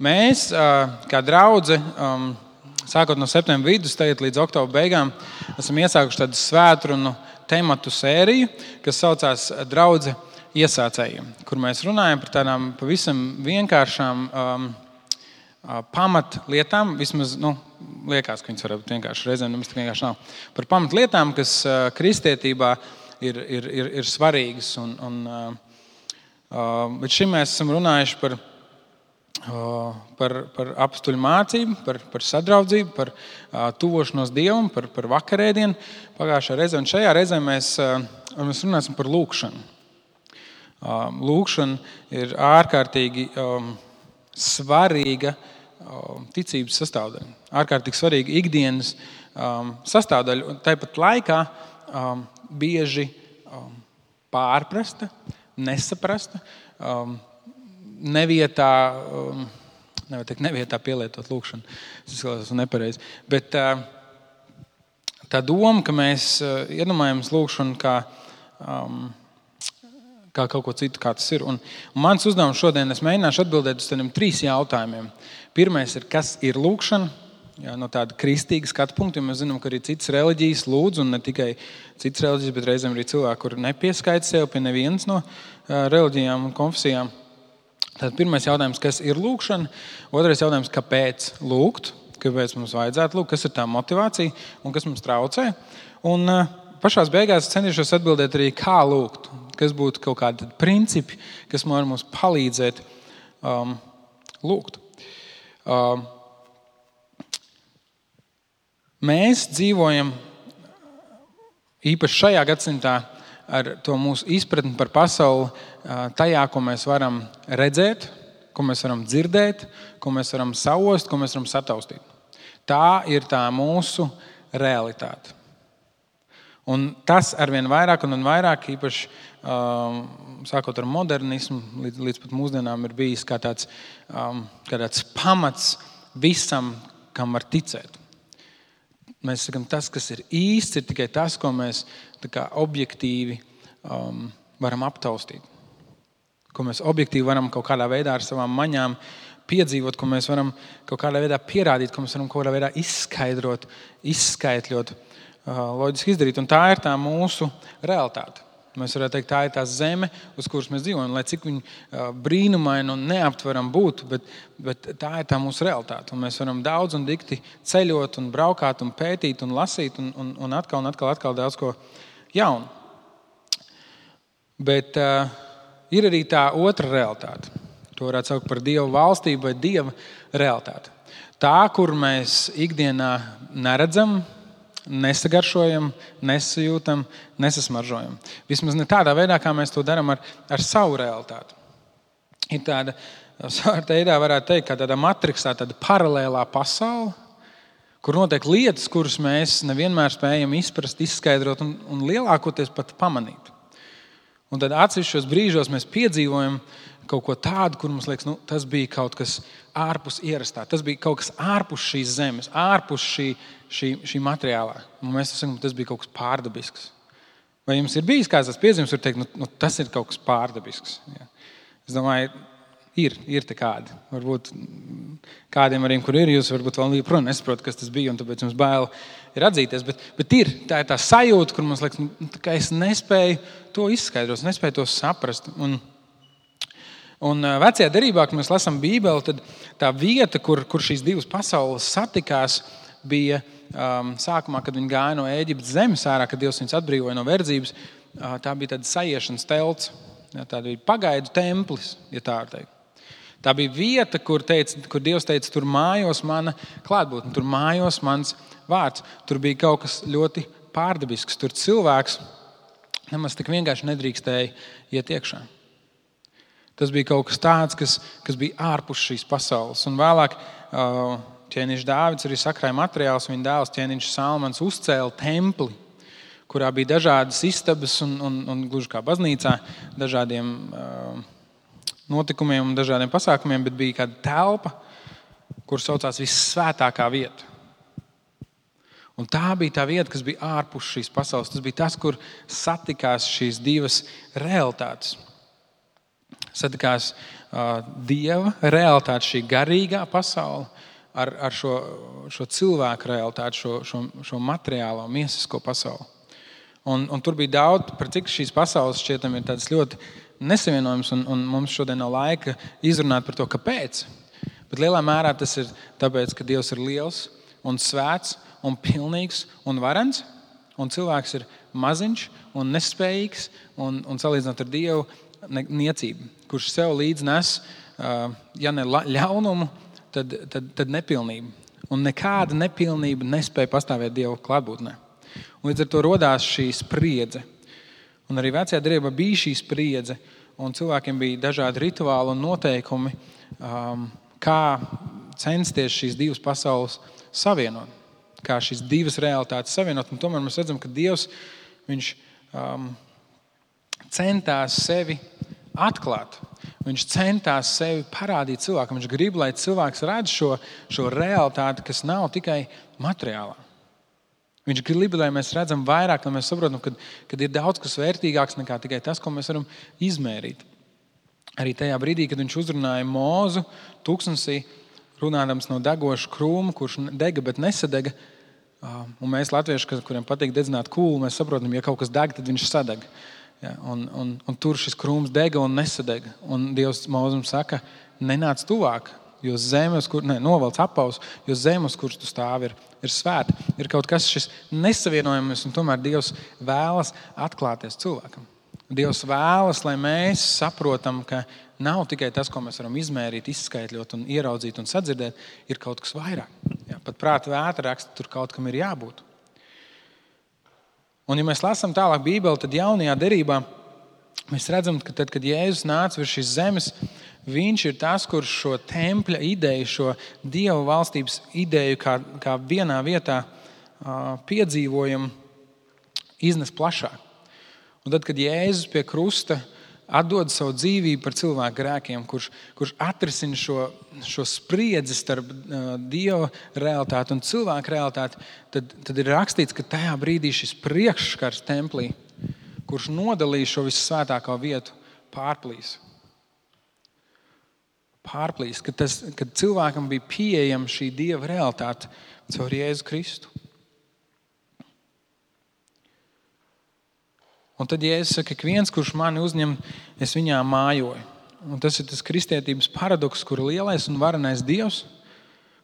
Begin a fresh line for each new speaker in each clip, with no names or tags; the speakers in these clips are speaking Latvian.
Mēs, kā draudze, sākot no septembra vidus, tagad līdz oktobra beigām, esam iesākuši tādu svētrunu tematu sēriju, kas saucās Draudze iesācējiem, kur mēs runājam par tādām pavisam vienkāršām pamatlietām, vismaz, liekas, ka viņas var būt vienkārši, reizēm nemaz tik vienkārši nav, par pamatlietām, kas kristietībā ir svarīgas. Bet šim mēs esam runājuši par apstuļu mācību, par sadraudzību, par tuvošanos Dievam, par vakarēdienu pagājušajā reizē. Un šajā reizē mēs runāsim par lūgšanu. Lūgšana ir ārkārtīgi svarīga ticības sastāvdaļa. Ārkārtīgi svarīga ikdienas sastāvdaļa. Un tāpat laikā bieži pārprasta, nesaprasta, nevietā pielietot lūgšanu. Tas izklausās nepareizi. Bet tā doma, ka mēs iedomājamies lūgšanu kā kaut ko citu, kā tas ir. Un mans uzdevums šodien, es mēģināšu atbildēt uz tādiem 3 jautājumiem. Pirmais ir, kas ir lūgšana? No tāda kristīga skatu punkta, jo mēs zinām, ka arī citas reliģijas lūdz, un ne tikai citas reliģijas, bet reizēm arī cilvēki, kuri nepieskaita sev pie nevienas no reliģijām un konfesijām. Tātad pirmais jautājums, kas ir lūgšana? Otrais jautājums, kāpēc lūgt? Kāpēc mums vajadzētu lūgt? Kas ir tā motivācija un kas mums traucē? Un pašās beigās centīšos atbildēt arī, kā lūgt. Kas būtu kaut kādi principi, kas var mums palīdzēt lūgt. Mēs dzīvojam īpaši šajā gadsimtā ar to mūsu izpratni par pasauli tajā, ko mēs varam redzēt, ko mēs varam dzirdēt, ko mēs varam saost, ko mēs varam sataustīt. Tā ir tā mūsu realitāte. Un tas arvien vairāk un vairāk, īpaši sākot ar modernismu, līdz pat mūsdienām ir bijis kā tāds pamats visam, kam var ticēt. Mēs sakām, tas, kas ir īsts, ir tikai tas, ko mēs objektīvi varam aptaustīt. Ko mēs objektīvi varam kaut kādā veidā ar savām maņām piedzīvot, ko mēs varam kaut kādā veidā pierādīt, ko mēs varam kaut kādā veidā izskaidrot, izskaitļot, loģiski izdarīt. Un tā ir tā mūsu realitāte. Mēs varētu teikt, tā ir tā zeme, uz kuras mēs dzīvojam, lai cik viņa brīnumaini un neaptveram būtu, bet tā ir tā mūsu realitāte. Un mēs varam daudz un dikti ceļot un braukāt un pētīt un lasīt un atkal daudz ko jaunu. Bet ir arī tā otra realitāte. To varētu saukt par Dieva valstību vai Dieva realitāti. Tā, kur mēs ikdienā neredzam, nesagaršojam, nesajūtam, nesasmaržojam. Vismaz ne tādā veidā, kā mēs to darām ar savu realitāti. Ir tāda, savā veidā varētu teikt, kā tāda matriksā, tāda paralēlā pasaule, kur notiek lietas, kuras mēs nevienmēr spējam izprast, izskaidrot un lielākoties pat pamanīt. Un tad atsevišķos brīžos mēs piedzīvojam kaut ko tādu, kur mums liekas, tas bija kaut kas ārpus ierastā. Tas bija kaut kas ārpus šīs zemes, ārpus šī materiālā. Un mēs sakām, tas bija kaut kas pārdabisks. Vai jums ir bijis kāds tas piezīmes, var teikt, tas ir kaut kas pārdabisks? Ja. Es domāju, ir te kādi. Varbūt kādiem arī, kur ir, jūs varbūt vēl joprojām nesaprotat, kas tas bija, un tāpēc jums bail ir atzīties. Bet tā ir tā sajūta, kur mums liekas, ka es nespēju to izskaidrot, nespēju to saprast. Un vecajā derībā, kad mēs lasām Bībeli, tad tā vieta, kur šīs divas pasaules satikās, bija sākumā, kad viņi gāja no Ēģiptes zemes ārā, kad Dievs viņus atbrīvoja no verdzības. Tā bija tāda saiešanas telts, tā bija pagaidu templis, ja tā var teikt. Tā bija vieta, kur Dievs teica, tur mājos mana klātbūtne, tur mājos mans vārds. Tur bija kaut kas ļoti pārdabisks. Tur cilvēks nemaz tik vienkārši nedrīkstēja iet iekšā. Tas bija kaut kas tāds, kas bija ārpus šīs pasaules. Un vēlāk ķēniņš Dāvids arī sakrāja materiālus, viņa dēls ķēniņš Salmans uzcēla templi, kurā bija dažādas istabas un gluži kā baznīcā, dažādiem notikumiem un dažādiem pasākumiem, bet bija kāda telpa, kur saucās vissvētākā vieta. Un tā bija tā vieta, kas bija ārpus šīs pasaules. Tas bija tas, kur satikās šīs divas realitātes. Satikās Dieva realitāti, šī garīgā pasaule, ar šo cilvēku realitāti, šo materiālo, miesisko pasauli. Un tur bija daudz, par cik šīs pasaules šķietam ir tādas ļoti nesavienojums, un mums šodien nav laika izrunāt par to, kāpēc. Bet lielā mērā tas ir tāpēc, ka Dievs ir liels un svēts un pilnīgs un varens, un cilvēks ir maziņš un nespējīgs, un salīdzinot ar Dievu niecību, kurš sev līdz nes, ja ne ļaunumu, tad nepilnību. Un nekāda nepilnība nespēja pastāvēt Dieva klātbūtnē. Un līdz ar to rodās šī spriedze. Un arī vecajā derībā bija šī spriedze, un cilvēkiem bija dažādi rituāli un noteikumi, kā censties šīs divas pasaules savienot, kā šīs divas realitātes savienot. Un tomēr mēs redzam, ka Dievs, viņš centās sevi atklāt. Viņš centās sevi parādīt cilvēkam. Viņš grib, lai cilvēks redz šo realitāti, kas nav tikai materiālā. Viņš grib, lai mēs redzam vairāk, lai mēs saprotam, ka ir daudz kas vērtīgāks nekā tikai tas, ko mēs varam izmērīt. Arī tajā brīdī, kad viņš uzrunāja Mūzu tūkstnesī, runādams no degoša krūma, kurš dega, bet nesadega. Un mēs, latvieši, kuriem patīk dedzināt kūlu, mēs saprotam, ja kaut kas deg, tad viņš sadeg. Ja, un tur šis krūms dega un nesadega. Un Dievs Mūzum saka, nenāc tuvāk, jo zemes, novelc apaus, jo zemes, kuras tu stāvi, ir svēta. Ir kaut kas šis nesavienojams, un tomēr Dievs vēlas atklāties cilvēkam. Dievs vēlas, lai mēs saprotam, ka nav tikai tas, ko mēs varam izmērīt, izskaitļot un ieraudzīt un sadzirdēt, ir kaut kas vairāk. Ja, pat prāta vētra raksta, tur kaut kam ir jābūt. Un ja mēs lasām tālāk Bībeli, tad jaunajā derībā mēs redzam, ka tad, kad Jēzus nāca virs šīs zemes, viņš ir tas, kurš šo tempļa ideju, šo Dieva valstības ideju, kā vienā vietā piedzīvojam, iznes plašāk. Un tad, kad Jēzus pie krusta atdod savu dzīvību par cilvēku grēkiem, kurš atrisina šo spriedzi starp Dieva realitāti un cilvēku realitāti, tad ir rakstīts, ka tajā brīdī šis priekšskars templī, kurš nodalīja šo vissvētāko vietu, pārplīs, kad cilvēkam bija pieejama šī Dieva realitāte caur Jēzu Kristu. Un tad Jēzus saka, ka viens, kurš mani uzņem, es viņā mājoju. Un tas ir tas kristietības paradoks, kur lielais un varenais Dievs,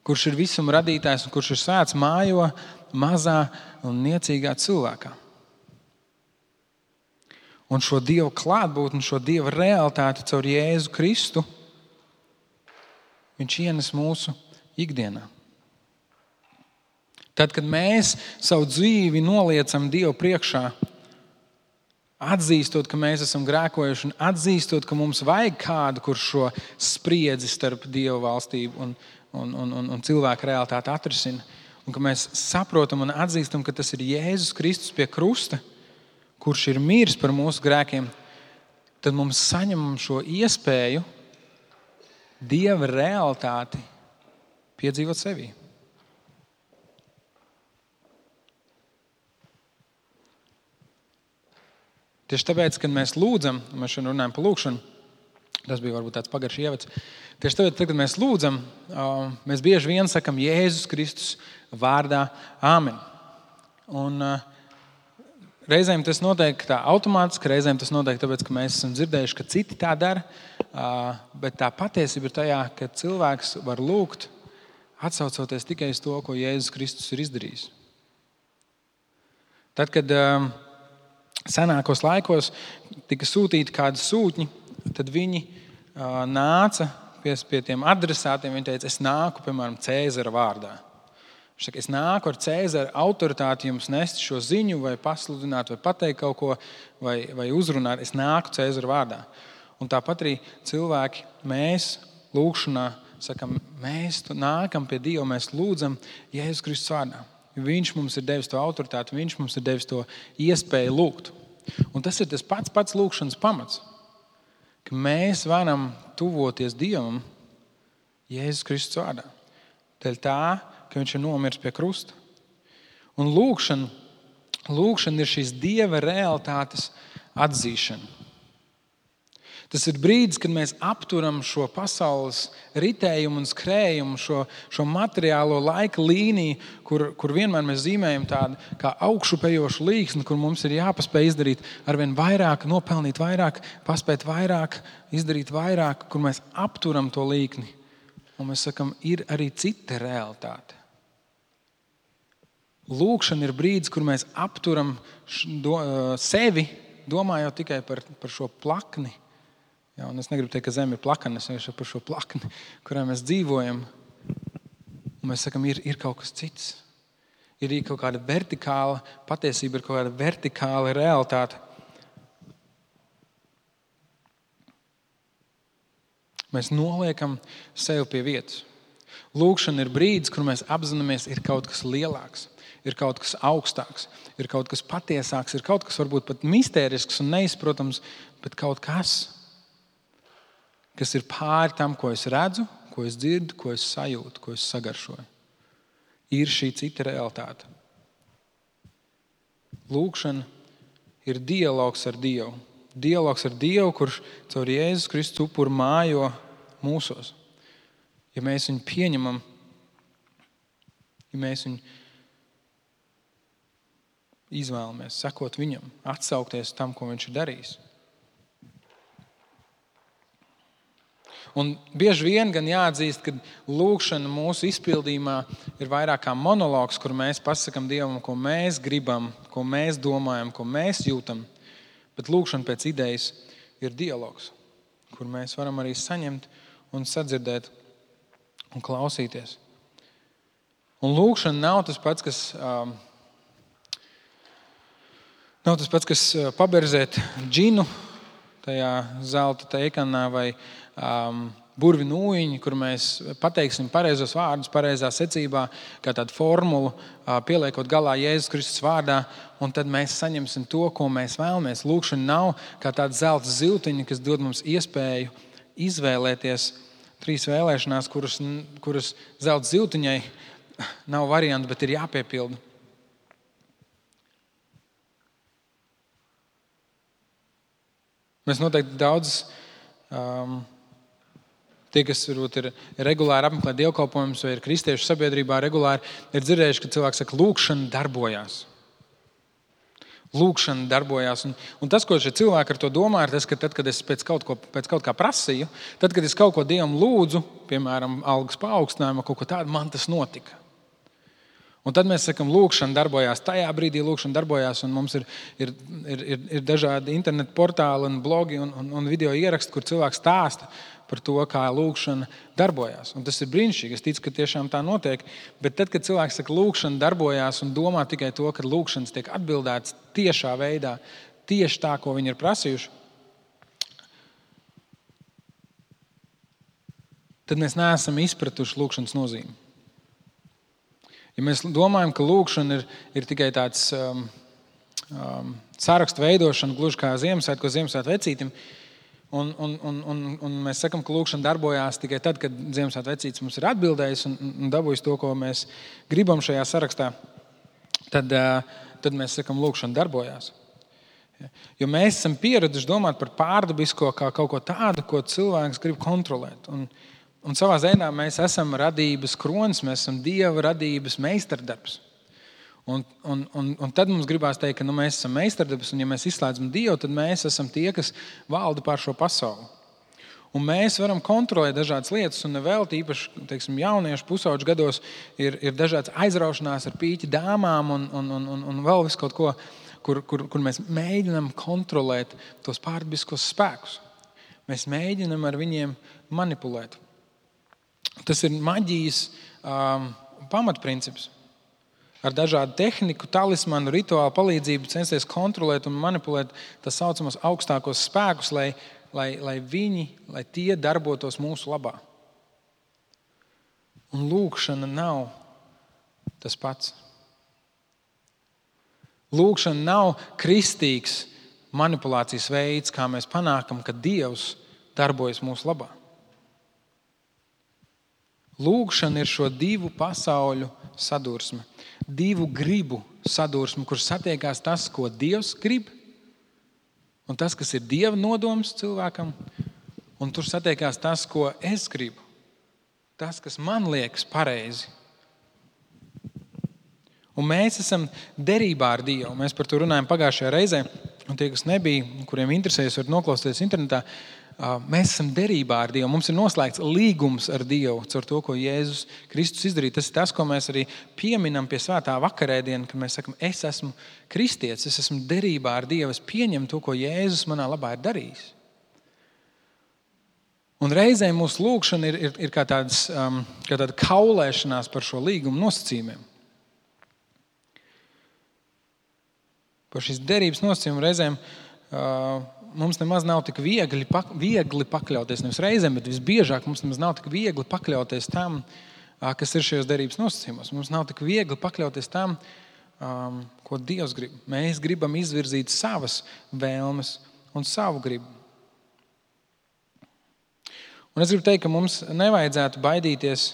kurš ir visuma radītājs un kurš ir svēts, mājo mazā un niecīgā cilvēkā. Un šo Dieva klātbūtni, šo Dieva realitāti caur Jēzu Kristu, viņš ienes mūsu ikdienā. Tad, kad mēs savu dzīvi noliecam Dievu priekšā, atzīstot, ka mēs esam grēkojuši un atzīstot, ka mums vajag kādu, kurš šo spriedzi starp Dieva valstību un cilvēku realitāti atrisina, un ka mēs saprotam un atzīstam, ka tas ir Jēzus Kristus pie krusta, kurš ir miris par mūsu grēkiem, tad mums saņemam šo iespēju Dieva realitāti piedzīvot sevī. Tieši tāpēc, kad mēs lūdzam, mēs šodien runājam par lūkšanu, tas bija varbūt tāds pagaršs ievads. Tieši tāpēc, kad mēs lūdzam, mēs bieži vien sakam Jēzus Kristus vārdā āmen. Un reizēm tas notiek tā automātiski, reizēm tas notiek tāpēc, ka mēs esam dzirdējuši, ka citi tā dara, bet tā patiesība ir tajā, ka cilvēks var lūgt, atsaucoties tikai uz to, ko Jēzus Kristus ir izdarījis. Tad, kad senākos laikos tika sūtīti kādi sūtņi, tad viņi nāca pie tiem adresātiem. Viņi teica, es nāku, piemēram, Cēzara vārdā. Viņš saka, es nāku ar Cēzara autoritāti jums nest šo ziņu, vai pasludināt, vai pateikt kaut ko, vai uzrunāt. Es nāku Cēzara vārdā. Un tāpat arī cilvēki, mēs lūkšanā sakam, mēs nākam pie Dieva, mēs lūdzam Jēzus Kristus vārdā. Viņš mums ir devis to autoritāti, viņš mums ir devis to iespēju lūgt. Un tas ir tas pats lūkšanas pamats, ka mēs varam tuvoties Dievam Jēzus Kristus vārdā. Dēļ tā, ka viņš ir nomiris pie krusta. Un lūkšana ir šīs Dieva realitātes atzīšana. Tas ir brīdis, kad mēs apturam šo pasaules ritējumu un skrējumu, šo materiālo laika līniju, kur vienmēr mēs zīmējam tādu kā augšupejošu līksni, kur mums ir jāpaspēj izdarīt arvien vairāk, nopelnīt vairāk, paspēt vairāk, izdarīt vairāk, kur mēs apturam to līkni. Un mēs sakam, ir arī cita realitāte. Lūkšana ir brīdis, kur mēs apturam sevi, domājot tikai par šo plakni. Ja, un es negribu teikt, ka zeme ir plakana, es vienkārši par šo plakni, kurā mēs dzīvojam. Un mēs sakam, ir kaut kas cits. Ir kaut kāda vertikāla patiesība, ir kaut kāda vertikāla realitāte. Mēs noliekam sevi pie vietas. Lūkšana ir brīdis, kur mēs apzināmies, ir kaut kas lielāks, ir kaut kas augstāks, ir kaut kas patiesāks, ir kaut kas varbūt pat mistērisks un neizprotams, bet kaut kas ir pāri tam, ko es redzu, ko es dzirdu, ko es sajūtu, ko es sagaršoju. Ir šī cita realitāte. Lūkšana ir dialogs ar Dievu. Dialogs ar Dievu, kurš caur Jēzus Kristus upuru mājo mūsos. Ja mēs viņu pieņemam, ja mēs viņu izvēlamies sekot viņam, atsaukties tam, ko viņš ir darījis. Un bieži vien gan jāatzīst, ka lūkšana mūsu izpildījumā ir vairāk kā monologs, kur mēs pasakam Dievam, ko mēs gribam, ko mēs domājam, ko mēs jūtam. Bet lūkšana pēc idejas ir dialogs, kur mēs varam arī saņemt un sadzirdēt un klausīties. Un lūkšana nav tas pats, kas paberzēt džinu tajā zelta teikanā vai burvi nūjiņu, kur mēs pateiksim pareizos vārdus, pareizā secībā, kā tādu formulu, pieliekot galā Jēzus Kristus vārdā, un tad mēs saņemsim to, ko mēs vēlamies. Lūkšana nav kā tāda zelta ziltiņa, kas dod mums iespēju izvēlēties 3 vēlēšanās, kuras zelta ziltiņai nav variantu, bet ir jāpiepilda. Mēs noteikti daudz tie, kas varbūt ir regulāri apmeklē dievkalpojumus vai ir kristiešu sabiedrībā regulāri, ir dzirdējuši, ka cilvēks saka, lūkšana darbojās. Lūkšana darbojās. Un tas, ko šie cilvēki ar to domā, ir tas, ka tad, kad es pēc kaut kā prasīju, tad, kad es kaut ko Dievam lūdzu, piemēram, algas paaugstinājumu, kaut ko tādu, man tas notika. Un tad mēs sakam, lūkšana darbojās. Tajā brīdī lūkšana darbojās, un mums ir dažādi internetu portāli un blogi un video ieraksti, kur cilvēks stāsta par to, kā lūkšana darbojās. Un tas ir brīnišķīgi. Es ticu, ka tiešām tā notiek. Bet tad, kad cilvēks saka, lūkšana darbojās un domā tikai to, ka lūkšanas tiek atbildētas tiešā veidā, tieši tā, ko viņi ir prasījuši, tad mēs neesam izpratuši lūkšanas nozīmi. Ja mēs domājam, ka lūkšana ir tikai tāds sarakstu veidošana, gluži kā Ziemassvētku vecītim, un mēs sakam, ka lūkšana darbojās tikai tad, kad Ziemassvētku vecītis mums ir atbildējis un dabūjis to, ko mēs gribam šajā sarakstā, tad mēs sakam, lūkšana darbojās. Jo mēs esam pieraduši domāt par pārdabisko kā kaut ko tādu, ko cilvēks grib kontrolēt. Un savā ziņā mēs esam radības kronis, mēs esam Dieva radības meistardarbs. Un tad mums gribās teikt, ka mēs esam meistardarbs, un ja mēs izslēdzam Dievu, tad mēs esam tie, kas valda pār šo pasauli. Un mēs varam kontrolēt dažādas lietas, un vēl tīpaši, jauniešu pusauģu gados ir dažādas aizraušanās ar pīķi dāmām un vēl visu kaut ko, kur mēs mēģinām kontrolēt tos pārdabiskos spēkus. Mēs mēģinām ar viņiem manipulēt. Tas ir maģijas pamatprincips. Ar dažādu tehniku, talismanu, rituālu palīdzību censties kontrolēt un manipulēt tā saucamos augstākos spēkus, lai tie darbotos mūsu labā. Un lūkšana nav tas pats. Lūkšana nav kristīgs manipulācijas veids, kā mēs panākam, ka Dievs darbojas mūsu labā. Lūkšana ir šo 2 pasauļu sadursme, 2 gribu sadursme, kur satiekās tas, ko Dievs grib, un tas, kas ir Dieva nodoms cilvēkam, un tur satiekās tas, ko es gribu. Tas, kas man liekas pareizi. Un mēs esam derībā ar Dievu. Mēs par to runājam pagājušajā reizē. Un tie, kas nebija, kuriem interesējas, var noklausīties internetā. Mēs esam derībā ar Dievu. Mums ir noslēgts līgums ar Dievu caur to, ko Jēzus Kristus izdarīja. Tas ir tas, ko mēs arī pieminam pie svētā vakarēdiena, kad mēs sakam, es esmu kristietis, es esmu derībā ar Dievu, es pieņemu to, ko Jēzus manā labā ir darījis. Un reizēm mūsu lūgšana ir kā tāda kaulēšanās par šo līgumu nosacījumiem. Par šīs derības nosacījumu reizēm mums nemaz nav tik viegli pakļauties, nevis reizēm, bet visbiežāk mums nemaz nav tik viegli pakļauties tam, kas ir šajos derības nosacījumos. Mums nav tik viegli pakļauties tam, ko Dievs grib. Mēs gribam izvirzīt savas vēlmes un savu gribu. Un es gribu teikt, ka mums nevajadzētu baidīties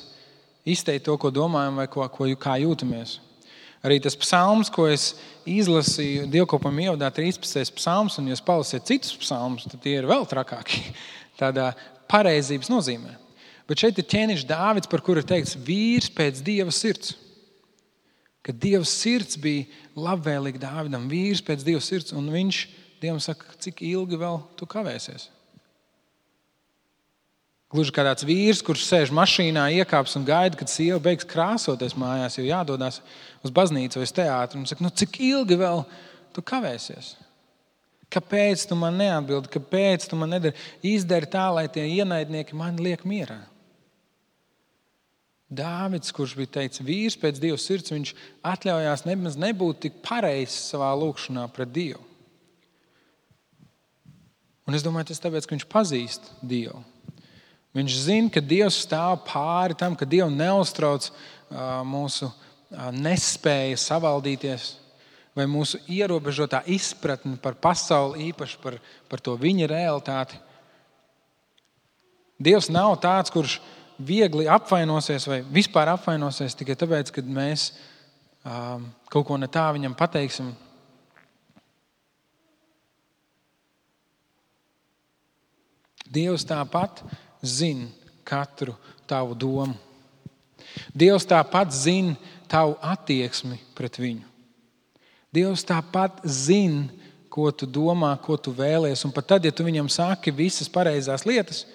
izteikt to, ko domājam vai kā jūtamies. Arī tas psalms, ko es izlasīju dievkalpojuma ievadā, 13. psalms, un ja jūs palasiet citus psalmus, tad tie ir vēl trakāki tādā pareizības nozīmē. Bet šeit ir ķēniņš Dāvids, par kuru ir teikts vīrs pēc Dieva sirds. Ka Dieva sirds bija labvēlīga Dāvidam, vīrs pēc Dieva sirds, un viņš Dievam saka, cik ilgi vēl tu kavēsies. Gluži kā tāds vīrs, kurš sēž mašīnā, iekāps un gaida, kad sieva beigs krāsoties mājās, jo jādodās uz baznīcu vai uz teātru. Un saka, cik ilgi vēl tu kavēsies? Kāpēc tu man neatbildi? Kāpēc tu man izdari tā, lai tie ienaidnieki mani liek mierā? Dāvids, kurš bija teicis vīrs pēc Dieva sirds, viņš atļaujās nemaz nebūt tik pareizs savā lūgšanā pret Dievu. Un es domāju, tas tāpēc, ka viņš pazīst Dievu. Viņš zina, ka Dievs stāv pāri tam, ka Dievu neuztrauc mūsu nespēja savaldīties vai mūsu ierobežotā izpratne par pasauli, īpaši par to viņa realitāti. Dievs nav tāds, kurš viegli apvainosies vai vispār apvainosies tikai tāpēc, ka mēs kaut ko ne tā viņam pateiksim. Dievs tāpat zina katru tavu domu. Dievs tāpat zina tavu attieksmi pret viņu. Dievs tāpat zina, ko tu domā, ko tu vēlies. Un pat tad, ja tu viņam saki visas pareizās lietas,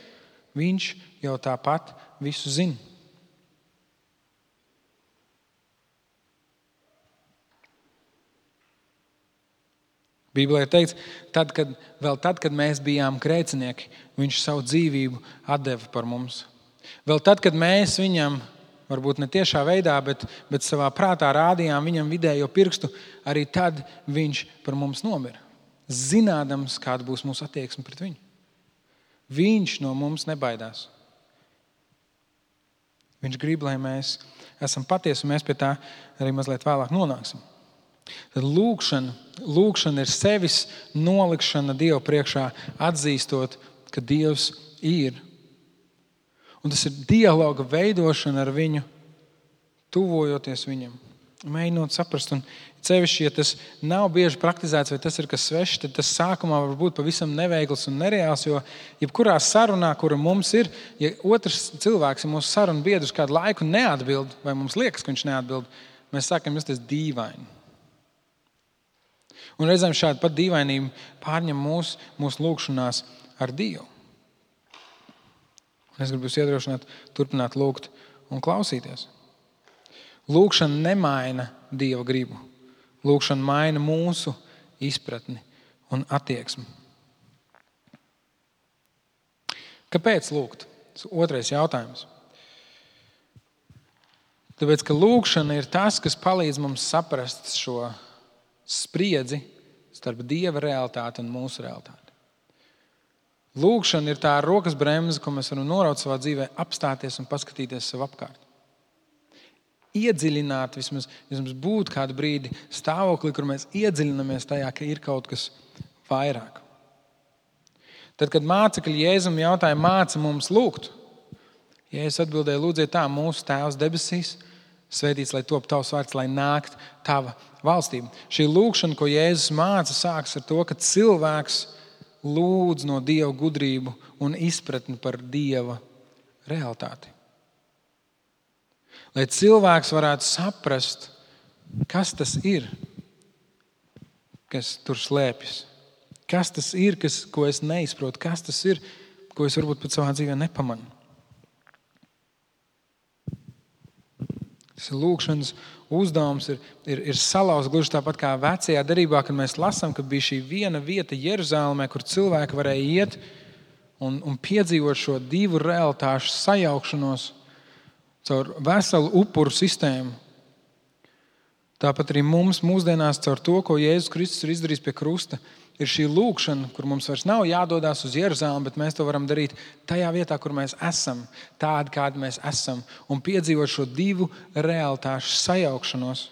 viņš jau tāpat visu zina. Bībelē ir teikts, tad, kad mēs bijām grēcinieki, viņš savu dzīvību atdeva par mums. Vēl tad, kad mēs viņam, varbūt ne tiešā veidā, bet savā prātā rādījām viņam vidējo pirkstu, arī tad viņš par mums nomira. Zinādams, kāda būs mūsu attieksme pret viņu. Viņš no mums nebaidās. Viņš grib, lai mēs esam patiesi, un mēs pie tā arī mazliet vēlāk nonāksim. Tad lūkšana ir sevis nolikšana Dievu priekšā, atzīstot, ka Dievs ir. Un tas ir dialoga veidošana ar viņu, tuvojoties viņam, mēģinot saprast. Un sevišķi, ja tas nav bieži praktizēts vai tas ir kas svešs, tad tas sākumā var būt pavisam neveikls un nereāls, jo jebkurā sarunā, kura mums ir, ja otrs cilvēks, ja mūsu sarunu biedrs kādu laiku neatbild, vai mums liekas, ka viņš neatbild, mēs sākam justies dīvaini. Un reizēm šāda pat dīvainība pārņem mūsu lūgšanās ar Dievu. Un es gribu jūs iedrošināt, turpināt lūgt un klausīties. Lūgšana nemaina Dieva gribu. Lūgšana maina mūsu izpratni un attieksmi. Kāpēc lūgt? Otrais jautājums. Tāpēc, ka lūgšana ir tas, kas palīdz mums saprast šo spriedzi starp Dieva realitāti un mūsu realitāti. Lūgšana ir tā rokas bremze, ko mēs varam noraut savā dzīvē, apstāties un paskatīties sev apkārt. Iedziļināt, vismaz būt kādu brīdi stāvoklī, kur mēs iedziļinamies tajā, ka ir kaut kas vairāk. Tad, kad mācekļi Jēzum jautāja, māci mums lūgt, Jēzus atbildēja, lūdziet tā, mūsu Tēvs debesīs, svētīts, lai top tavs vārds, lai nākt tava valstība. Šī lūgšana, ko Jēzus māca, sākas ar to, ka cilvēks lūdz no Dieva gudrību un izpratni par Dieva realitāti. Lai cilvēks varētu saprast, kas tas ir, kas tur slēpjas. Kas tas ir, ko es neizprotu? Kas tas ir, ko es varbūt pat savā dzīvē nepamanu? Tas ir lūkšanas uzdevums, ir salauzt gluži tāpat kā vecajā derībā, kad mēs lasām, ka bija šī viena vieta Jeruzalemē, kur cilvēki varēja iet un piedzīvot šo divu realitāšu sajaukšanos caur veselu upuru sistēmu. Tāpat arī mums mūsdienās caur to, ko Jēzus Kristus ir izdarījis pie krusta, ir šī lūkšana, kur mums vairs nav jādodās uz Jeruzalemi, bet mēs to varam darīt tajā vietā, kur mēs esam, tādi, kādi mēs esam, un piedzīvot šo divu realitāšu sajaukšanos,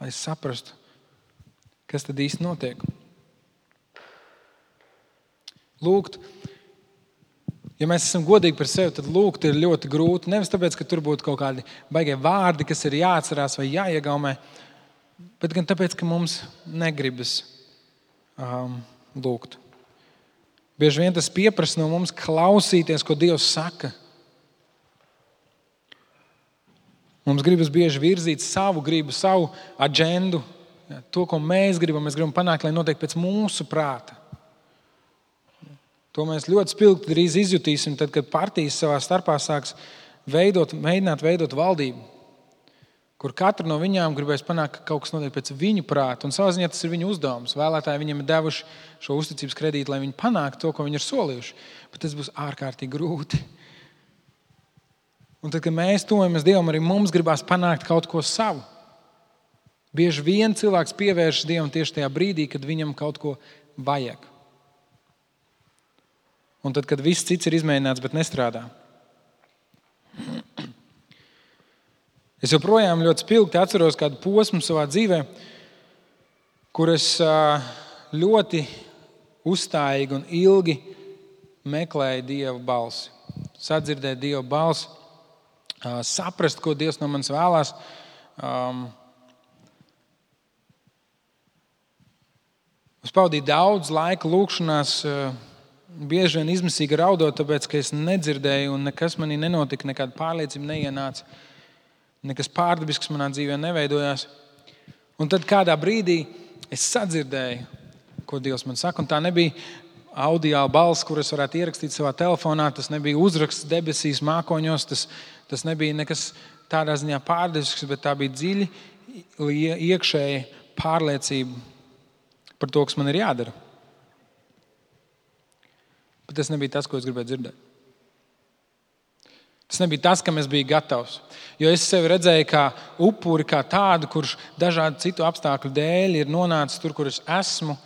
lai saprastu, kas tad īsti notiek. Lūgt, ja mēs esam godīgi par sevi, tad lūgt ir ļoti grūti. Nevis tāpēc, ka tur būtu kaut kādi baigie vārdi, kas ir jāatcerās vai jāiegaumē, bet gan tāpēc, ka mums negribas lūgt. Bieži vien tas pieprasa no mums klausīties, ko Dievs saka. Mums gribas bieži virzīt savu gribu, savu aģendu, to, ko mēs gribam panākt, lai notiek pēc mūsu prāta. To mēs ļoti spilgti drīz izjutīsim, tad, kad partijas savā starpā sāks mēģināt veidot valdību, kur katru no viņām gribēs panākt, ka kaut kas notiek pēc viņu prāta. Un savā ziņā tas ir viņu uzdevums. Vēlētāji viņiem ir devuši šo uzticības kredītu, lai viņi panāktu to, ko viņi ir solījuši. Bet tas būs ārkārtīgi grūti. Un tad, kad mēs tuvojamies Dievam, arī mums gribās panākt kaut ko savu. Bieži vien cilvēks pievēršas Dievam tieši tajā brīdī, kad viņam kaut ko vajag. Un tad, kad viss cits ir izmēģināts, bet nestrādā. Es joprojām ļoti spilgti atceros kādu posmu savā dzīvē, kur es ļoti uzstājīgi un ilgi meklēju Dieva balsi. Sadzirdēt Dieva balsi, saprast, ko Dievs no manis vēlās. Es pavadīju daudz laika lūkšanās, bieži vien izmisīgi raudot, tāpēc, ka es nedzirdēju un nekas manī nenotika, nekāda pārliecība neienāca, nekas pārdabisks manā dzīvē neveidojās. Un tad kādā brīdī es sadzirdēju, ko Dievs man saka, un tā nebija audiāla balss, kur es varētu ierakstīt savā telefonā, tas nebija uzraksts debesīs, mākoņos, tas nebija nekas tādā ziņā pārdabisks, bet tā bija dziļi iekšēja pārliecība par to, kas man ir jādara. Bet tas nebija tas, ko es gribēju dzirdēt. Tas nebija tas, kam es biju gatavs. Jo es sevi redzēju kā upuri, kā tādu, kurš dažādu citu apstākļu dēļ ir nonācis tur, kur es esmu.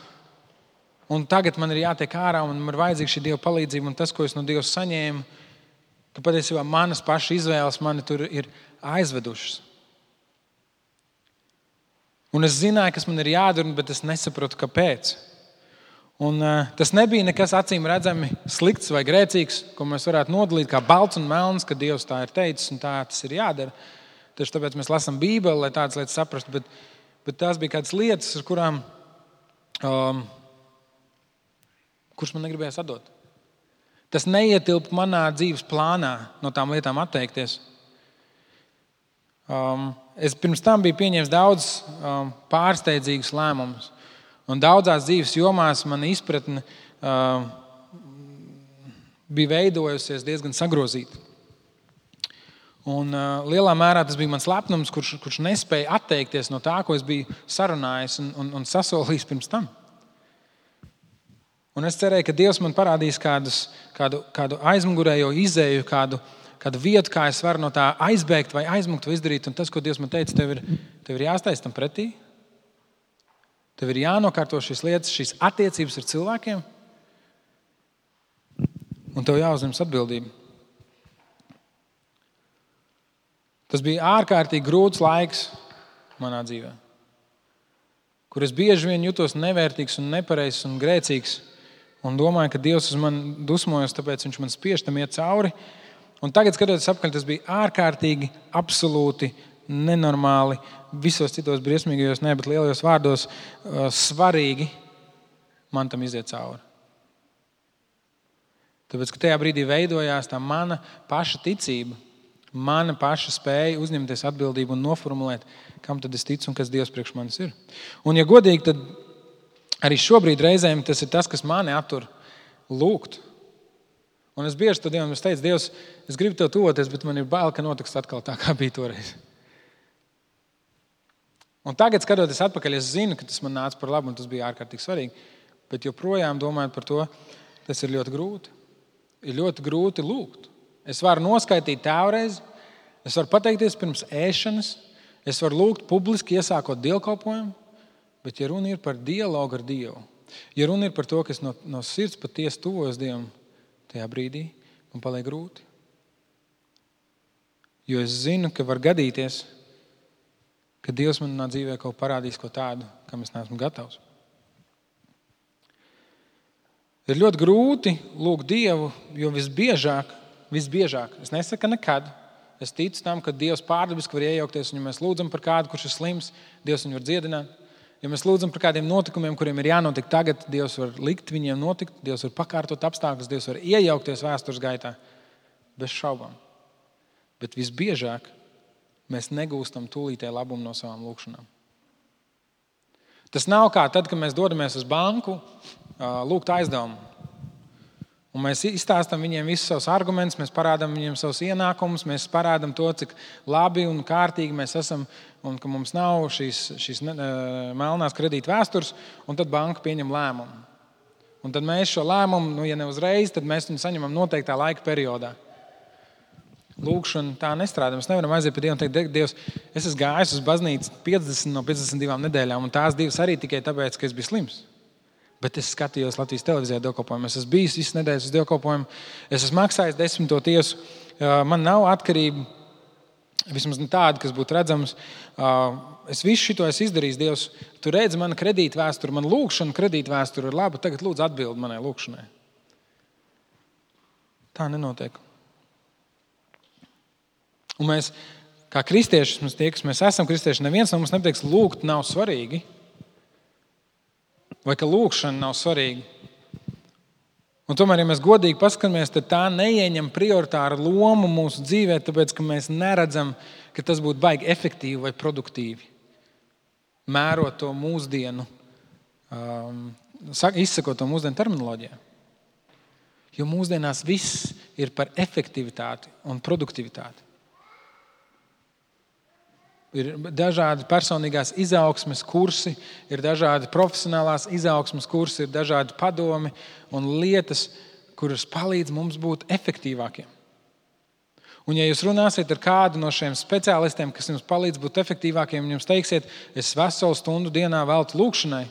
Un tagad man ir jātiek ārā un man ir vajadzīga šī Dieva palīdzība. Un tas, ko es no Dieva saņēmu, ka patiesībā manas paša izvēles mani tur ir aizvedušas. Un es zināju, kas man ir jādara, bet es nesaprotu, kāpēc. Un tas nebija nekas acīm redzami slikts vai grēcīgs, ko mēs varētu nodalīt kā balts un melns, ka Dievs tā ir teicis un tā tas ir jādara. Tieši tāpēc mēs lasām Bībeli, lai tādas lietas saprastu, bet tās bija kādas lietas, ar kurām, kuras man negribējās atdot. Tas neietilpa manā dzīves plānā no tām lietām atteikties. Es pirms tam biju pieņēmis daudz pārsteidzīgus lēmumus. Un daudzās dzīves jomās mana izpratne bija veidojusies diezgan sagrozīta. Un lielā mērā tas bija mans lepnums, kurš nespēja atteikties no tā, ko es biju sarunājis un sasolījis pirms tam. Un es cerēju, ka Dievs man parādīs kādu aizmugurējo izēju, kādu vietu, kā es varu no tā aizbēgt vai aizmukt vai izdarīt. Un tas, ko Dievs man teica, tev ir jāstājas tam pretī. Tev ir jānokārto šīs lietas, šīs attiecības ar cilvēkiem, un tev jāuzņemas atbildība. Tas bija ārkārtīgi grūts laiks manā dzīvē, kur es bieži vien jutos nevērtīgs un nepareizs un grēcīgs, un domāju, ka Dievs uz mani dusmojas, tāpēc viņš man spiež tam iet cauri. Un tagad, skatoties apkārt, tas bija ārkārtīgi, absolūti nenormāli, visos citos briesmīgajos, bet lielajos vārdos svarīgi man tam iziet cauri. Tāpēc, ka tajā brīdī veidojās tā mana paša ticība, mana paša spēja uzņemties atbildību un noformulēt, kam tad es ticu un kas Dievs priekš manis ir. Un, ja godīgi, tad arī šobrīd reizēm tas ir tas, kas mani attur lūgt. Un es bieži to Dievam teicu, Dievs, es gribu tev tuvoties, bet man ir bail, ka notiks atkal tā, kā bija toreiz. Un tagad, skatoties atpakaļ, es zinu, ka tas man nāca par labu un tas bija ārkārtīgi svarīgi. Bet joprojām domājot par to, tas ir ļoti grūti. Ir ļoti grūti lūgt. Es varu noskaitīt tēvreiz, es varu pateikties pirms ēšanas, es varu lūgt publiski, iesākot dievkalpojumu, bet ja runa ir par dialogu ar Dievu, ja runa ir par to, ka es no sirds patiesi tuvojos Dievam, tajā brīdī man paliek grūti. Jo es zinu, ka var gadīties, ka Dievs manā dzīvē kaut parādīs ko tādu, kam es neesmu gatavs. Ir ļoti grūti lūgt Dievu, jo visbiežāk, es nesaku nekad, es ticu tam, ka Dievs pārdabiski var iejaukties, un ja mēs lūdzam par kādu, kurš ir slims, Dievs viņu var dziedināt. Ja mēs lūdzam par kādiem notikumiem, kuriem ir jānotiek tagad, Dievs var likt viņiem notikt, Dievs var pakārtot apstākļus, Dievs var iejaukties vēstures gaitā, bez šaubām. Bet visbiežāk mēs negūstam tūlītēji labumu no savām lūkšanām. Tas nav kā tad, kad mēs dodamies uz banku, lūgt aizdevumu. Un mēs izstāstam viņiem visus savus argumentus, mēs parādām viņiem savus ienākumus, mēs parādām to, cik labi un kārtīgi mēs esam un ka mums nav šīs melnās kredīta vēstures, un tad banka pieņem lēmumu. Un tad mēs šo lēmumu, ja ne uzreiz, tad mēs viņu saņemam noteiktā laika periodā. Lūkšana tā nestrādā. Mēs nevaram aiziet pie Dievu un teikt, Dievs, es esmu gājis uz baznīcu 50 no 52 nedēļām, un tās 2 arī tikai tāpēc, ka es biju slims. Bet es skatījos Latvijas televīzijā dievkalpojumu. Es esmu bijis visas nedēļas uz dievkalpojumu. Es esmu maksājis 10. tiesu. Man nav atkarība, vismaz tāda, kas būtu redzams. Es visu šito esmu izdarījis, Dievs. Tu redzi manu kredīta vēsturi, man lūkšana kredīta vēsturi ir laba. Tagad lūdzu atbildi manai lūkšanai. Tā nenotiek. Un mēs, kā kristieši, mēs esam kristieši, neviens no mums nepateiks, lūgt nav svarīgi. Vai ka lūkšana nav svarīga. Un tomēr, ja mēs godīgi paskatāmies, tad tā neieņem prioritāru lomu mūsu dzīvē, tāpēc, ka mēs neredzam, ka tas būtu baigi efektīvi vai produktīvi. Mērot to mūsdienu, izsakot to mūsdienu terminoloģijā. Jo mūsdienās viss ir par efektivitāti un produktivitāti. Ir dažādi personīgās izaugsmes kursi, ir dažādi profesionālās izaugsmes kursi, ir dažādi padomi un lietas, kuras palīdz mums būt efektīvākiem. Un ja jūs runāsiet ar kādu no šiem speciālistiem, kas jums palīdz būt efektīvākiem, un jums teiksiet, es veselu stundu dienā veltu lūkšanai,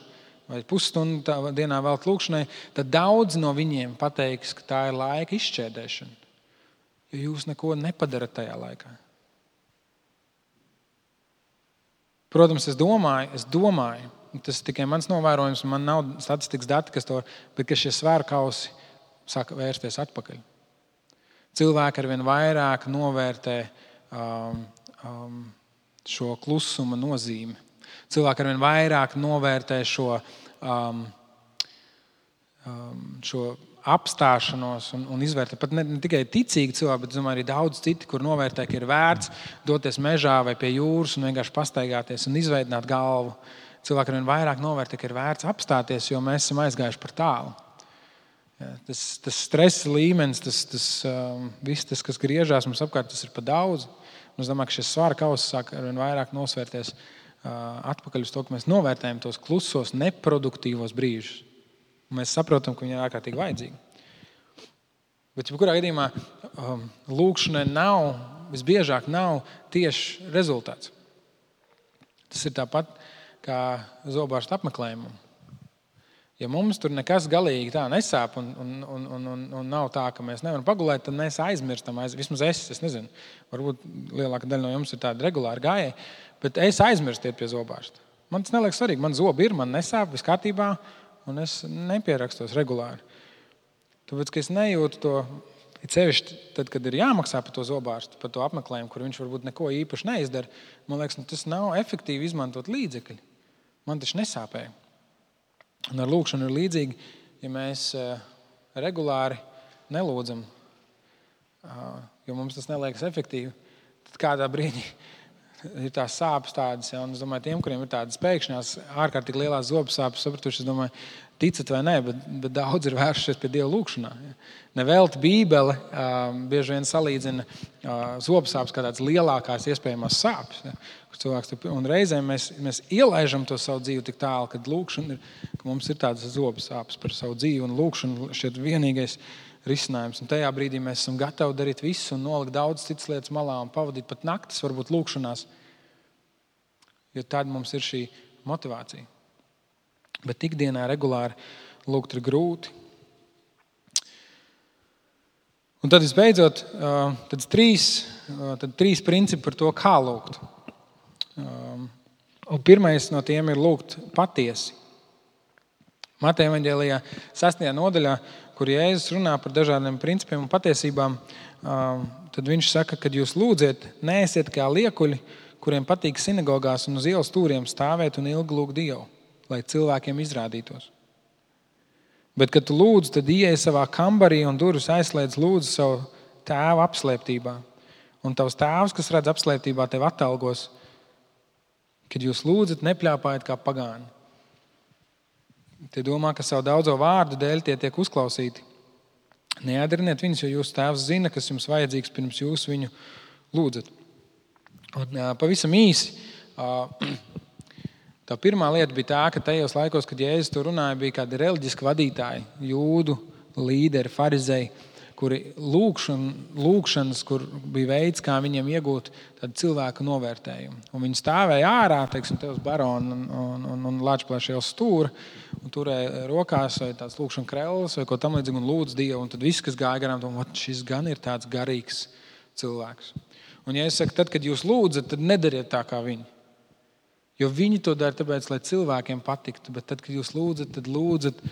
vai pusstundu dienā veltu lūkšanai, tad daudz no viņiem pateiks, ka tā ir laika izšķērdēšana, jo jūs neko nepadarat tajā laikā. Protams, es domāju, tas tikai mans novērojums, man nav statistikas dati, bet ka šie svērkausi sāka vērsties atpakaļ. Cilvēki arvien vairāk novērtē šo klusuma nozīmi. Cilvēki arvien vairāk novērtē šo apstāšanos un izvērtē. Pat ne tikai ticīgi cilvēki, bet domāju, arī daudz citi, kur novērtē, ka ir vērts doties mežā vai pie jūras un vienkārši pastaigāties un izveidināt galvu. Cilvēki arvien vairāk novērtē, ka ir vērts apstāties, jo mēs esam aizgājuši par tālu. Ja, tas stresa līmenis, viss tas, kas griežās mums apkārt, tas ir pa daudz. Un es domāju, ka šis svara kauss sāk arvien vairāk nosvērties atpakaļ uz to, ka mēs novērtējam tos klusos, neproduktīvos brīžus. Mēs saprotam, ka viņi ir ārkārtīgi vajadzīgi. Bet jebkurā gadījumā lūkšanai visbiežāk nav tieši rezultāts. Tas ir tāpat kā zobārsta apmeklējumam. Ja mums tur nekas galīgi tā nesāp un nav tā, ka mēs nevaram pagulēt, tad mēs aizmirstam. Vismaz es nezinu, varbūt lielāka daļa no jums ir tāda regulāra gājēja, bet es aizmirstu iet pie zobārsta. Man tas neliekas svarīgi. Man zobi ir, man nesāp, viss kārtībā. Un es nepierakstos regulāri. Tāpēc, ka es nejūtu to, sevišķi tad, kad ir jāmaksā par to zobārstu, par to apmeklējumu, kur viņš varbūt neko īpaši neizdara, man liekas, tas nav efektīvi izmantot līdzekļi. Man taču nesāpēja. Un ar lūkšanu ir līdzīgi, ja mēs regulāri nelūdzam, jo mums tas neliekas efektīvi, tad kādā brīdī ir tās sāpes tādas, ja, un es domāju, tiem, kuriem ir tādas pēkšņās, ārkārtīgi lielās zobu sāpes, sapratuši, es domāju, ticat vai nē, bet daudz ir vēršies pie Dieva lūkšanā. Ja. Nevelti Bībele bieži vien salīdzina zobu sāpes kā tādas lielākās iespējamās sāpes. Ja, un reizēm mēs ielaižam to savu dzīvi tik tālu, kad lūkšana ir, ka mums ir tādas zobu sāpes par savu dzīvi, un lūkšana šķiet vienīgais risinājums. Un tajā brīdī mēs esam gatavi darīt visu un nolikt daudz citas lietas malā un pavadīt pat naktis, varbūt lūkšanās, jo tad mums ir šī motivācija. Bet ikdienā regulāri lūgt ir grūti. Un tad visbeidzot, tad trīs principi par to, kā lūgt. Un pirmais no tiem ir lūgt patiesi. Mateja evaņģēlijā 6. nodaļā, kur Jēzus runā par dažādiem principiem un patiesībām, tad viņš saka, kad jūs lūdziet, neesiet kā liekuļi, kuriem patīk sinagogās un uz ielas stūriem stāvēt un ilgi lūgt Dievu, lai cilvēkiem izrādītos. Bet, kad tu lūdz, tad ieej savā kambarī un durvis aizslēdz lūdzu savu tēvu apslēptībā. Un tavs tēvs, kas redz apslēptībā, tev atalgos. Kad jūs lūdzat, nepļāpājiet kā pagāni. Tie domā, ka savu daudzo vārdu dēļ tie tiek uzklausīti. Neēdriniet viņus, jo jūsu tēvs zina, kas jums vajadzīgs, pirms jūs viņu lūdzat. Un, pavisam īsi, tā pirmā lieta bija tā, ka tajos laikos, kad Jēzus to runāja, bija kādi reliģiski vadītāji, jūdu līderi, farizēji, kuri lūkšanas, kur bija veids, kā viņiem iegūt tādu cilvēku novērtējumu. Un viņi stāvēja ārā, teiksim, te uz barona un Lāčplēša ielas stūra, un turēja rokās vai tāds lūkšana krellis vai ko tam līdzīgi un lūdz Dievu. Un tad viss, kas gāja garām, domā, šis gan ir tāds garīgs cilvēks. Un ja es saku, tad, kad jūs lūdzat, tad nedariet tā kā viņi. Jo viņi to dara tāpēc, lai cilvēkiem patiktu. Bet tad, kad jūs lūdzat, tad lūdzat,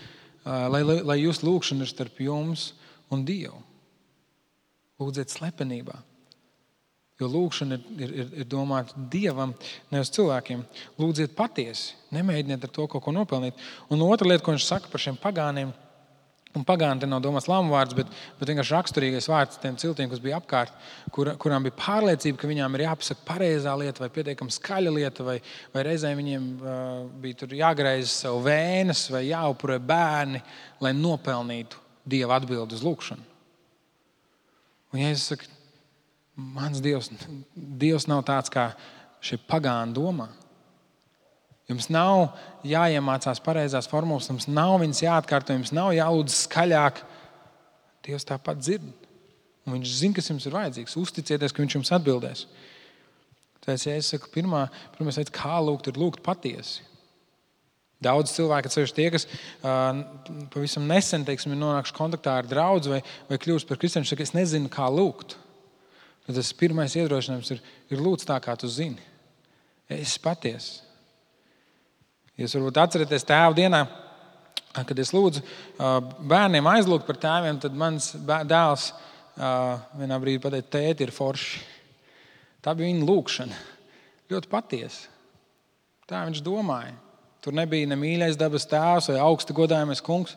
lai jūs lūkšana ir starp jums un Dievu. Lūdziet slepenībā. Jo lūkšana ir domāta Dievam, nevis cilvēkiem. Lūdziet patiesi. Nemēģiniet ar to kaut ko nopelnīt. Un otra lieta, ko viņš saka par šiem pagāniem, un pagāni te nav domāts lamu vārds, bet vienkārši raksturīgais vārds tiem ciltiem, kas bija apkārt, kurām bija pārliecība, ka viņām ir jāpasaka pareizā lieta vai pietiekami skaļa lieta, vai reizēm viņiem bija tur jāgreiz savu vēnes vai jāupurē bērni, lai nopelnītu Dieva atbildi uz lūkšanu. Un Jēzus saka, mans Dievs nav tāds, kā šie pagāni domā. Jums nav jāiemācās pareizās formulas, jums nav viņas jāatkārto, jums nav jālūdz skaļāk. Dievs tāpat dzird. Un viņš zina, kas jums ir vajadzīgs. Uzticieties, ka viņš jums atbildēs. Tāpēc, ja es saku, pirmais veids, kā lūgt, ir lūgt patiesi. Daudz cilvēki, ceļš tie, kas pavisam nesen, teiksim, ir nonākuši kontaktā ar draudzi vai kļūst par kristiešiem, saka, es nezinu, kā lūgt. Tad tas pirmais iedrošinājums ir lūdz tā, kā tu zini. Es patiesi. Jūs varbūt atceraties tēva dienā, kad es lūdzu bērniem aizlūgt par tēviem, tad mans dēls vienā brīdī pateica, tēti ir forši. Tā bija viņa lūkšana. Ļoti patiesa. Tā viņš domāja. Tur nebija ne mīļais dabas tēvs vai augsti godājamais kungs.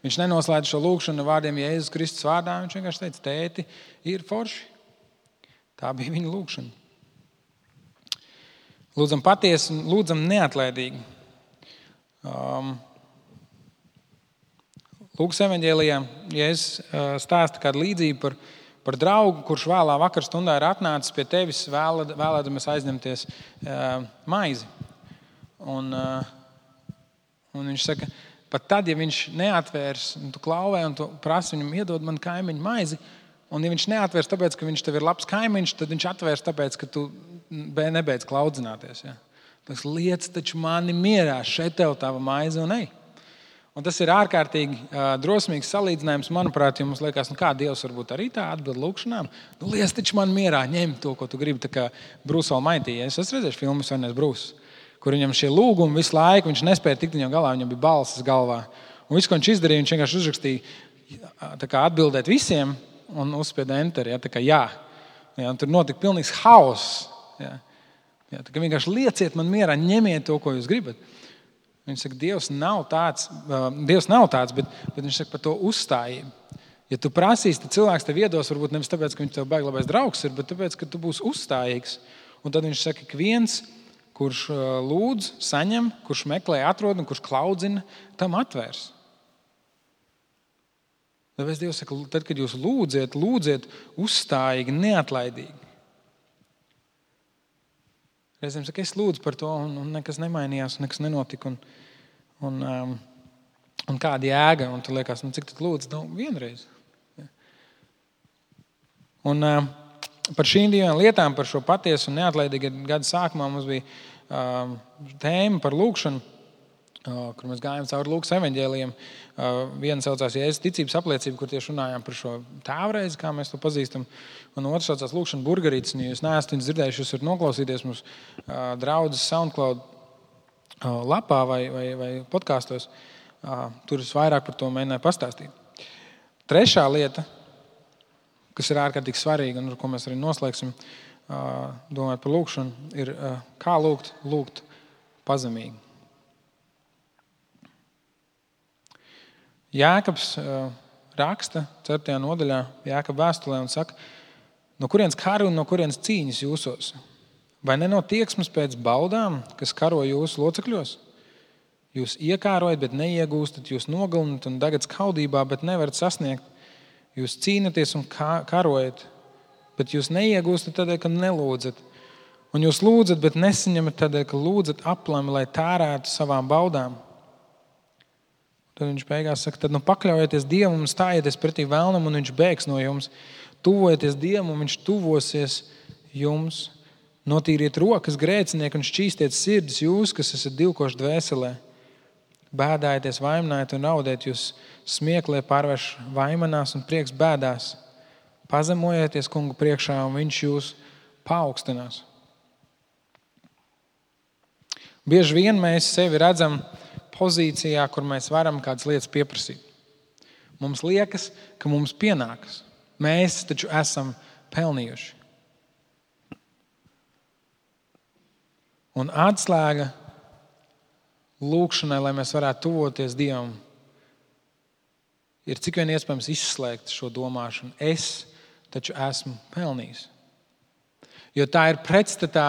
Viņš nenoslēdz šo lūkšanu vārdiem Jēzus Kristus vārdā. Viņš vienkārši teica, tēti ir forši. Tā bija viņa lūkšana. Lūdzam patiesi un lūdzam neatlaidīgi. Lūkas evaņģēlijā Jēzus stāsta kādu līdzību par draugu, kurš vēlā vakarstundā ir atnācis pie tevis vēlēdamies aizņemties maizi. Un viņš saka, pat tad, ja viņš neatvērs, un tu klauvē, un tu prasi viņam iedod man kaimiņu maizi, un ja viņš neatvērs tāpēc, ka viņš tev ir labs kaimiņš, tad viņš atvērs tāpēc, ka tu nebeidz klaudzināties. Ja? Tas liec taču mani mierā, šeit tev tava maize un ej. Un tas ir ārkārtīgi drosmīgs salīdzinājums, manuprāt, jo mums liekas, kā Dievs varbūt arī tā atbild lūkšanām. Liec taču man mierā, ņem to, ko tu gribi, tā kā Bruce Almighty. Es esmu redzējuši filmu Svenais Bruce, kur viņam šie lūgumi visu laiku, viņš nespēja tikt viņam galā, viņam bija balsis galvā. Un viss, ko viņš izdarīja, viņš vienkārši uzrakstīja tā kā atbildēt visiem un uzspieda enter, ja, tā kā jā. Ja, un tur notika pilnīgs hauss. Ja. Ja, tā kā vienkārši lieciet man mierā, ņemiet to, ko jūs gribat. Viņš saka, Dievs nav tāds, bet viņš saka par to uzstājību. Ja tu prasīsi, tad cilvēks tev iedos, varbūt nevis tāpēc, ka viņš tev baigi labais draugs ir, bet tāpēc, ka tu būsi uzstājīgs. Un tad viņš saka, ka viens, kurš lūdz, saņem, kurš meklē, atrod un kurš klaudzina, tam atvērs. Tāpēc Dievs saka, tad, kad jūs lūdziet uzstājīgi, neatlaidīgi. Reizēm saka, es lūdzu par to, un nekas nemainījās, nekas nenotika. Un kāda jēga? Un tu liekas, cik tad lūdzu? Vienreiz. Un par šīm divām lietām, par šo patiesu un neatlaidīgu gada sākumā mums bija tēma par lūkšanu, kur mēs gājām cauri Lūkas evaņģēlijiem. Viena saucās Jēzus ticības apliecība, kur tieši runājām par šo tēvreizi, kā mēs to pazīstam. Un otrs saucās lūkšana burgerītes. Ja jūs neesat viņus dzirdējuši, jūs varat noklausīties mums draudzes SoundCloud lapā vai podkāstos. Tur es vairāk par to mēģināju pastāstīt. Trešā lieta, kas ir ārkārtīgi svarīga un ar ko mēs arī noslēgsim, domājot par lūkšanu, ir kā lūgt pazemīgi. Jēkabs raksta 4. nodaļā Jēkaba vēstulē un saka, no kurienes kari un no kurienes cīņas jūsos? Vai ne no tieksmes pēc baudām, kas karo jūsu locekļos? Jūs iekārojat, bet neiegūstat, jūs nogalinat un dagat skaudībā, bet nevarat sasniegt. Jūs cīnaties un karojat, bet jūs neiegūstat tādēļ, ka nelūdzat. Un jūs lūdzat, bet nesaņemat tādēļ, ka lūdzat aplami, lai tērētu savām baudām. Tad viņš beigās saka, tad pakļaujieties Dievam un stājieties pretī vēlnam, un viņš bēgs no jums. Tuvojieties Dievam, un viņš tuvosies jums. Notīriet rokas grēcinieki un šķīstiet sirdis jūs, kas esat divkoši dvēselē. Bēdājieties, vaiminājiet un raudēt, jūs smieklē pārvērš vaimanās un prieks bēdās. Pazemojieties Kungu priekšā, un viņš jūs paaugstinās. Bieži vien mēs sevi redzam pozīcijā, kur mēs varam kādas lietas pieprasīt. Mums liekas, ka mums pienākas. Mēs taču esam pelnījuši. Un atslēga lūkšanai, lai mēs varētu tuvoties Dievam, ir cik vien iespējams izslēgt šo domāšanu. Es taču esmu pelnījis. Jo tā ir pretstatā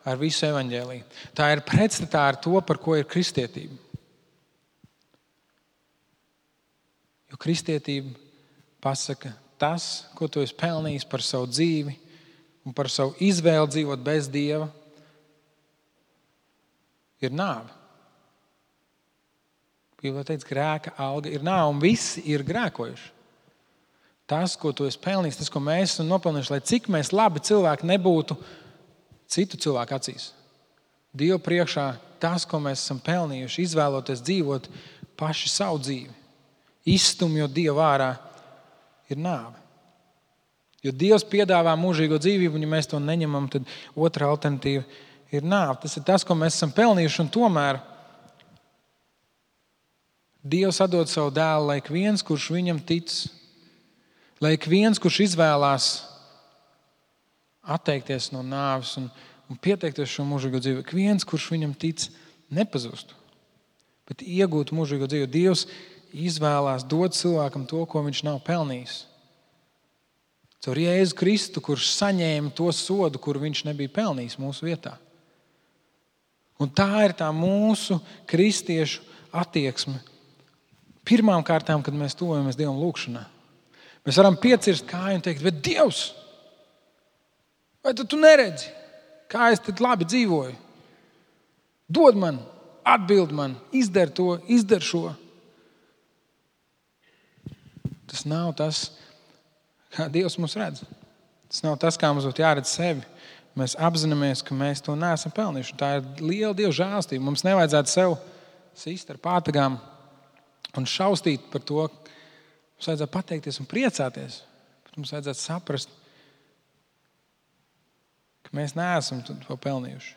ar visu evaņģēliju. Tā ir pretstatā ar to, par ko ir kristietība. Jo kristietība pasaka, tas, ko tu esi pelnījis par savu dzīvi un par savu izvēli dzīvot bez Dieva, ir nāve. Bībelē teica, grēka alga ir nāve, un visi ir grēkojuši. Tas, ko tu esi pelnījis, tas, ko mēs esam nopelnījuši, lai cik mēs labi cilvēki nebūtu citu cilvēku acīs. Dievu priekšā tas, ko mēs esam pelnījuši, izvēloties dzīvot paši savu dzīvi, izstumjot Dievu ārā, ir nāve. Jo Dievs piedāvā mūžīgo dzīvību, un ja mēs to neņemam, tad otra alternatīva ir nāve. Tas ir tas, ko mēs esam pelnījuši, un tomēr Dievs atdod savu dēlu, lai ik viens, kurš viņam tic, lai ik viens, kurš izvēlās atteikties no nāves un pieteikties šo mūžīgo dzīvi, ik viens, kurš viņam tic, nepazustu, bet iegūtu mūžīgo dzīvi. Dievs izvēlās dot cilvēkam to, ko viņš nav pelnījis. Caur Jēzu Kristu, kurš saņēma to sodu, kuru viņš nebija pelnījis mūsu vietā. Un tā ir tā mūsu kristiešu attieksme. Pirmām kārtām, kad mēs tuvojamies Dievam lūkšanā, mēs varam piecirst kāju un teikt, bet Dievs, vai tu neredzi, kā es tad labi dzīvoju? Dod man, atbild man, izdar to, izdar šo. Tas nav tas, kā Dievs mūs redz. Tas nav tas, kā mums būtu jāredz sevi. Mēs apzināmies, ka mēs to neesam pelnījuši. Tā ir liela Dieva žēlastība. Mums nevajadzētu sev sist ar pātagām un šaustīt par to. Mums vajadzētu pateikties un priecāties. Bet mums vajadzētu saprast, ka mēs neesam to pelnījuši.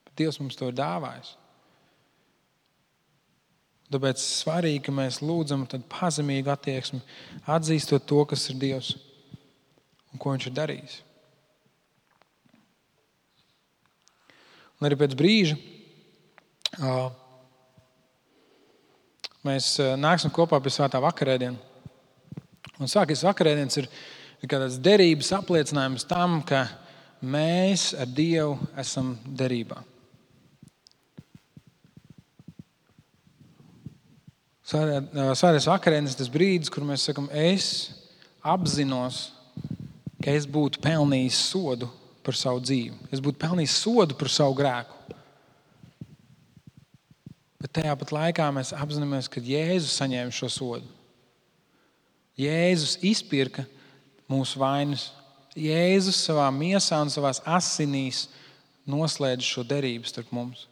Bet Dievs mums to ir dāvājis. Tāpēc svarīgi, ka mēs lūdzam pazemīgu attieksmi, atzīstot to, kas ir Dievs un ko viņš ir darījis. Un arī pēc brīža mēs nāksim kopā pie svētā vakarēdiena. Un svētais vakarēdienas ir kā tāds derības apliecinājums tam, ka mēs ar Dievu esam derībā. Svētais vakarēdienas tas brīdis, kur mēs sakam, es apzinos, ka es būtu pelnījis sodu par savu dzīvi. Es būtu pelnījis sodu par savu grēku. Bet tajā pat laikā mēs apzināmies, ka Jēzus saņēma šo sodu. Jēzus izpirka mūsu vainas. Jēzus savā miesā un savās asinīs noslēdz šo derību starp mums.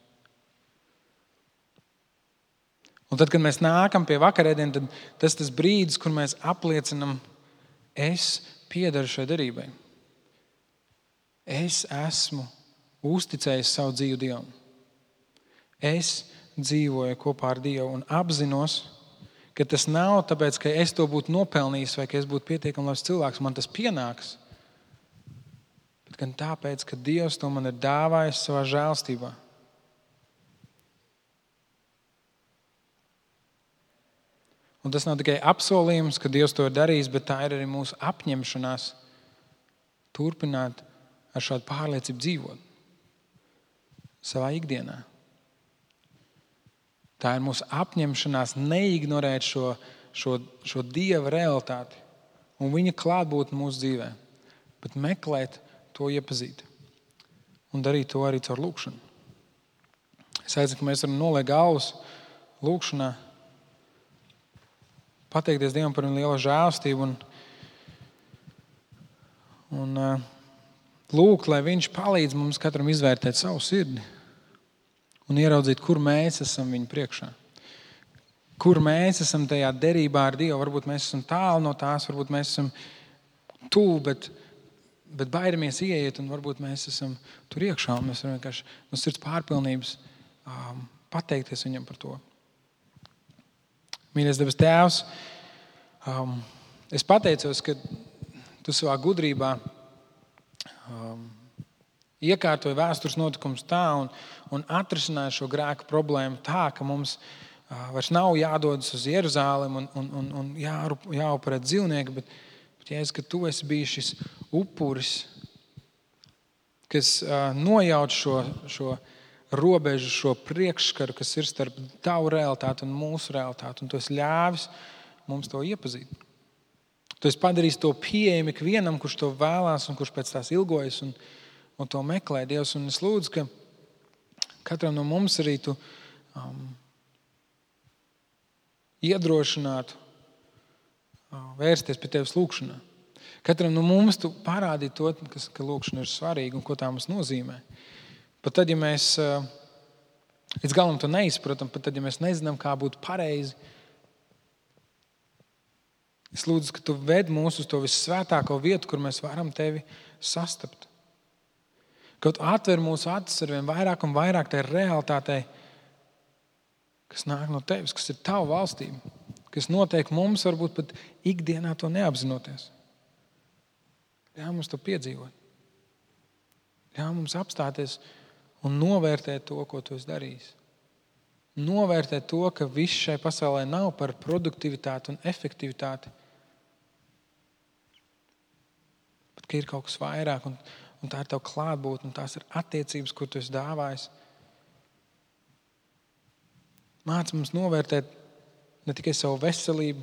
Un tad, kad mēs nākam pie vakarēdiena, tad tas brīdis, kur mēs apliecinam, es piederu šai derībai. Es esmu uzticējis savu dzīvi Dievam. Es dzīvoju kopā ar Dievu un apzinos, ka tas nav tāpēc, ka es to būtu nopelnījis vai ka es būtu pietiekami labs cilvēks, man tas pienāks, bet gan tāpēc, ka Dievs to man ir dāvājis savā žēlstībā. Un tas nav tikai apsolījums, ka Dievs to ir darījis, bet tā ir arī mūsu apņemšanās turpināt ar šādu pārliecību dzīvot savā ikdienā. Tā ir mūsu apņemšanās neignorēt šo Dieva realitāti un viņa klātbūtni mūsu dzīvē, bet meklēt to iepazīt un darīt to arī caur lūgšanu. Es aicinu, ka mēs varam noliekt galvas lūgšanā, pateikties Dievam par viņa lielo žēlstību un lūgt, lai viņš palīdz mums katram izvērtēt savu sirdi un ieraudzīt, kur mēs esam viņa priekšā. Kur mēs esam tajā derībā ar Dievu. Varbūt mēs esam tālu no tās, varbūt mēs esam tuvu, bet baidamies ieiet, un varbūt mēs esam tur iekšā, un mēs varam vienkārši no sirds pārpilnības pateikties viņam par to. Mīļais debes Tēvs, es pateicos, ka tu savā gudrībā iekārtoja vēstures notikums tā un atrisināja šo grēku problēmu tā, ka mums vairs nav jādodas uz Jeruzālemi un jāupurē dzīvnieki, bet Jēzus, ka tu esi bijis šis upuris, kas nojauc šo robežu, šo priekšskaru, kas ir starp tavu realitāti un mūsu realitāti, un tu esi ļāvis mums to iepazīt. Tu esi padarījis to pieejami ikvienam, kurš to vēlās un kurš pēc tās ilgojas un to meklē, Dievs. Un es lūdzu, ka katram no mums arī tu iedrošinātu vērsties pie tevis lūgšanā. Katram no mums tu parādītu to, ka lūgšana ir svarīga un ko tā mums nozīmē. Pat tad, ja mēs līdz galam to neizpratam, pat tad, ja mēs nezinām, kā būtu pareizi, es lūdzu, ka tu ved mūs uz to vissvētāko vietu, kur mēs varam tevi sastapt. Ka tu atver mūsu acis ar vien vairāk un vairāk tai realitātei, kas nāk no tevis, kas ir tava valstība, kas notiek mums varbūt pat ikdienā to neapzinoties. Ļauj mums to piedzīvot. Ļauj mums apstāties un novērtēt to, ko tu esi darījis. Novērtēt to, ka viss šai pasaulē nav par produktivitāti un efektivitāti, bet ka ir kaut kas vairāk un tā ir tava klātbūtne, un tās ir attiecības, ko tu esi dāvājis. Māc mums novērtēt ne tikai savu veselību,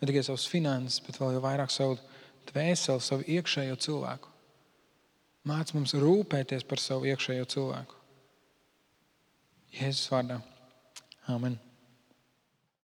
ne tikai savas finanses, bet vēl jau vairāk savu dvēseli, savu iekšējo cilvēku. Māc mums rūpēties par savu iekšējo cilvēku. Jēzus vārdā. Amen.